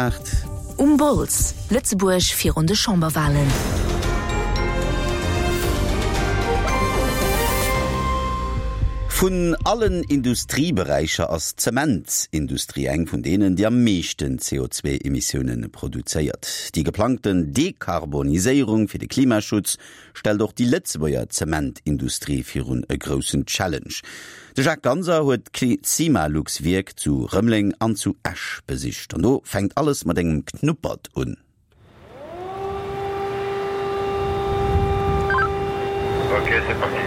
8. Um Bols, Lëtzebuerg virun de Chamberwalen. Vun allen Industrieberäicher ass d'Zementsindustrie eng vun deenen, déi am meeschten CO2-Emissioune produzéiert. Déi geplangten Dekarboniséierung fir de Klimaschutz stellt och déi Lëtzebuerger Zementindustrie virun e groussen Challenge. De Jacques Ganser huet d'Cimalux-Wierk zu Rëmeleng an zu Esch besicht. An do fänkt alles mat engem Knuppert un. Ok, c'est parti.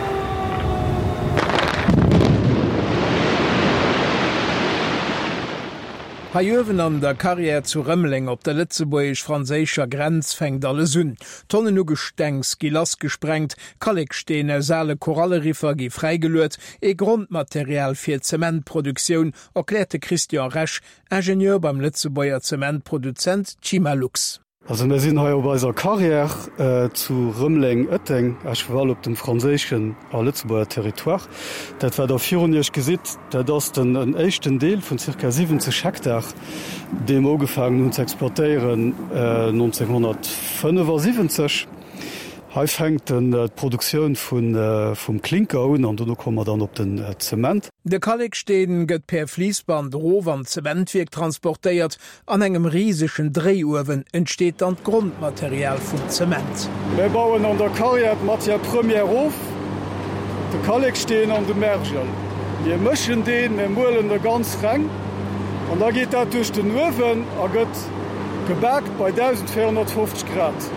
Hei uewen an der Carrière zu Rëmeleng op der lëtzebuergesch-franséischer Grenz fänkt alles un. Tonnen u Gestengs gi lassgesprengt, Kalleksteen aus ale Koralleriffer gi fräigeluet, ee Grondmaterial fir d'Zementproduktioun, erkläert de Christian Resch, Ingenieur beim Lëtzebuerger Zementproduzent Cimalux. Also mir sinn hei op eiser Carrière zu Rëmeleng-Ëtteng, à cheval op dem franséischen a Lëtzebuerger Territoire. Dat wat der virun iech gesitt, dat ass den éischten Deel vun zirka 70 Hektar, dee mer ugefaangen hunn ze exploitéieren 1975. Hei fänkt d'Produktioun vum Klinker un an dono komme mer dann op den Zement. De Kalleksteen gëtt per Fliissband erof an d'Zementwierk transportéiert. An engem risegen Dréiuewen entsteet dann d'Grondmaterial vum Zement. Mir bauen an der Carrière d'Matière première of, de Kalleksteen an de Mergel. Mir mëschen deen, mir muelen e ganz reng an da geet dat duerch den Uewen a gëtt gebaakt bei 1.450 Grad.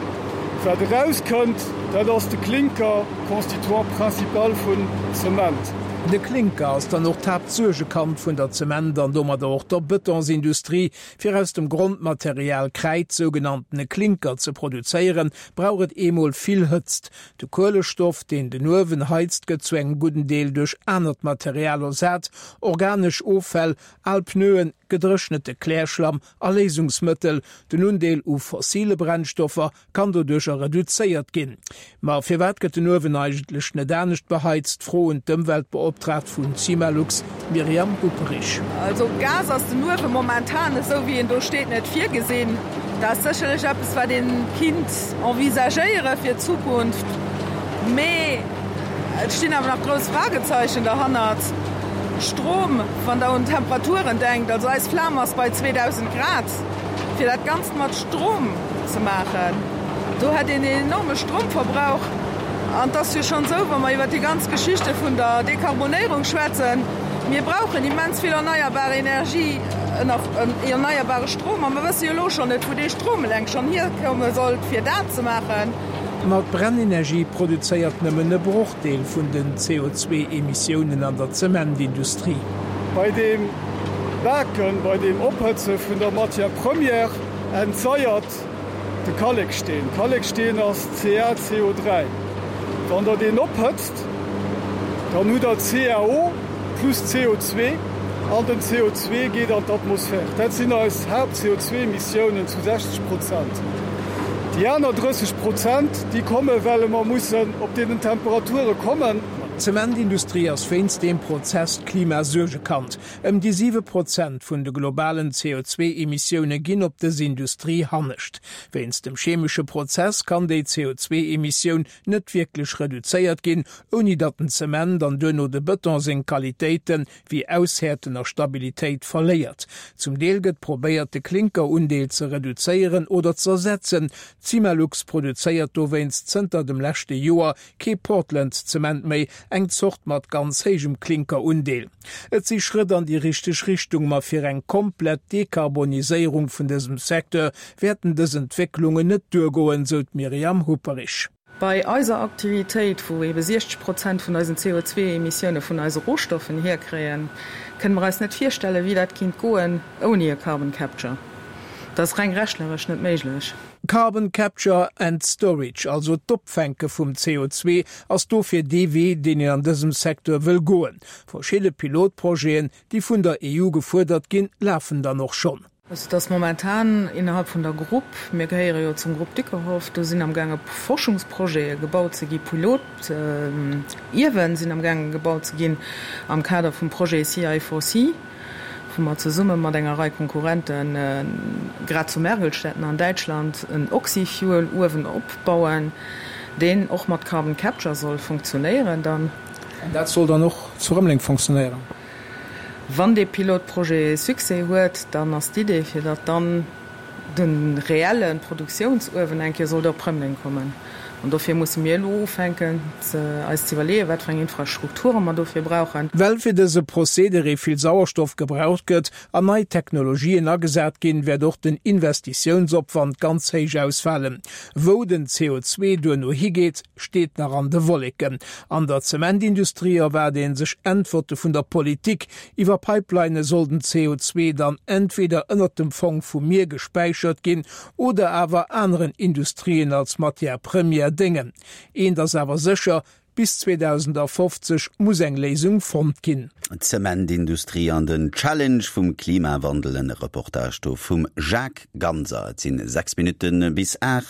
Wat erauskënnt, dat ass de Klinker, Constituant principal vun Zement. De Klinker ass dann och d'Haaptsuergekand vun der Zement an domadder och der Bëtonsindustrie. Fir aus dem Grondmaterial Kräid, sougenanntene Klinker, ze produzéieren, brauch et eemol vill Hëtzt. De Kuelestoff, deen den Uewen heizt, gëtt zu engem gudden Deel duerch anert Material ersat, organesch Offäll, al Pneuen, gedréchnete Klärschlamm a Léisungsmëttel. Den Undeel u fossile Brennstoffer kann doduercher reduzéiert ginn. Ma firwat gëtt den Uewen eigentlech net anescht beheizt? Fro un d'Ëmweltbeoptraagt vun Cimalux, Myriam Hupperich. Also Gas ass den Uewe momentan, esou wéi en do steet, net virgesinn. Dat ass sécherlech eppes, wat ee kinnt envisagéiere fir d'Zukunft. Mee et stinn awer nach grouss Fragezeichen derhannert. Strom, wann Der un d'Temperaturen denkt, also eis Flam ass bei 2.000 Grad. Fir dat Ganzt mat Strom ze maachen, do hätt een een enorme Stromverbrauch. An et ass jo schonn esou, wa mer iwwert déi ganz Geschichte vun der Dekarbonéierung schwätzen, mir brauchen immens vill erneierbar Energie, erneierbare Strom. A mer wësse jo elo schonn net, wou dee Strom eleng schonn hierkomme sollt, fir dat ze maachen. Ma d'Brennenergie produzéiert nëmmen e Brochdeel vun den CO2-Emissiounen an der Zementindustrie. Bei deem Baken, bei deem Ophëtze vun der Matière première entsaiert de Kalleksteen. Kalleksteen ass CaCO3. Wann der deen ophëtzt, dann hutt der CaO plus CO2 an den CO2 geet an d'Atmosphär. Dat sinn eis Haapt-CO2-Emissiounen zu 60 Prozent. Déi aner 30 Prozent, déi komme well mer mussen op deenen Temperature kommen. D'Zementindustrie ass wéinst deem Prozess d'Klimasuergekand. Ëm déi 7 Prozent vun de globalen CO2-Emissioune ginn op dës Industrie hannescht. Wéinst dem chemesche Prozess kann déi CO2-Emissioun net wierklech reduzéiert ginn, ouni datt den Zement an duerno de Bëton seng Qualitéite wéi Aushäerten a Stabilitéit verléiert. Zum Deel gëtt probéiert, de Klinkerundeel ze reduzéieren oder z'ersetzen. D'Cimalux produzéiert dowéinst zënter dem leschte Joer kee Portland-Zement méi, eng Zort mat ganz héijem Klinkerundeel. Et si Schrëtt an déi richteg Richtung, ma fir eng komplett Dekarboniséierung vun dësem Secteur wäerten dës Entwécklungen net duergoen, sou d'Myriam Hupperich. Bei eiser Aktivitéit, wou ebe 60 Prozent vun eisen CO2-Emissioune vun eise Rohstoffen hierkréien, kënne mer eis net virstellen, wéi dat kinnt goen ouni e Carbon Capture. Dat ass reng rechneresch net méiglech. Carbon Capture and Storage, also d'Opfänke vum CO2, ass dofir dee Wee, deen een an dësem Secteur wëll goen. Verschidde Pilotprojeten, déi vun der EU gefuerdert ginn, lafen dann och schonn. Also et ass momentan innerhalb vun der Grupp, mir gehéiere jo zum Grupp Dyckerhoff, do sinn amgaange Forschungsprojete gebaut ze gi, Pilotiewen sinn amgaange gebaut ze ginn am Kader vum Projet CI4C. Wou mer zesumme mat enger Rei Konkurrente grad zu Mergelstetten an Däitschland en Oxyfuel-Uewen opbauen, deen och mat Carbon Capture soll funktionéieren dann. An dat soll dann och zu Rëmeleng funktionéieren? Wann dee Pilotprojet Succès huet, dann ass d'Idee, fir datt dann de reelle Produktiounsuewen eng Kéier sollt op Rëmeleng kommen. An dofir musse mir elo ufänken, eis ze iwwerleeën, wat fir eng Infrastrukture mer dofir brauchen. Well fir dëse Procédéré vill Sauerstoff gebraucht gëtt an nei Technologien agesat ginn, wäert och den Investitiounsopwand ganz héich ausfalen. Wou den CO2 duerno higeet, steet nach an de Wolleken. An der Zementindustrie erwaart ee sech Äntwerte vun der Politik. Iwwer Pipelinë soll den CO2 dann entweder ënnert dem Fong vum Mier gespäichert ginn oder awer aneren Industrien als Matière première déngen. Eent ass awer sécher, Bis 2050 muss eng Léisung fonnt ginn. D'Zementindustrie an den Challenge vum Klimawandel, en Reportage do vum Jacques Ganser. Et sinn 6 Minutte bis 8.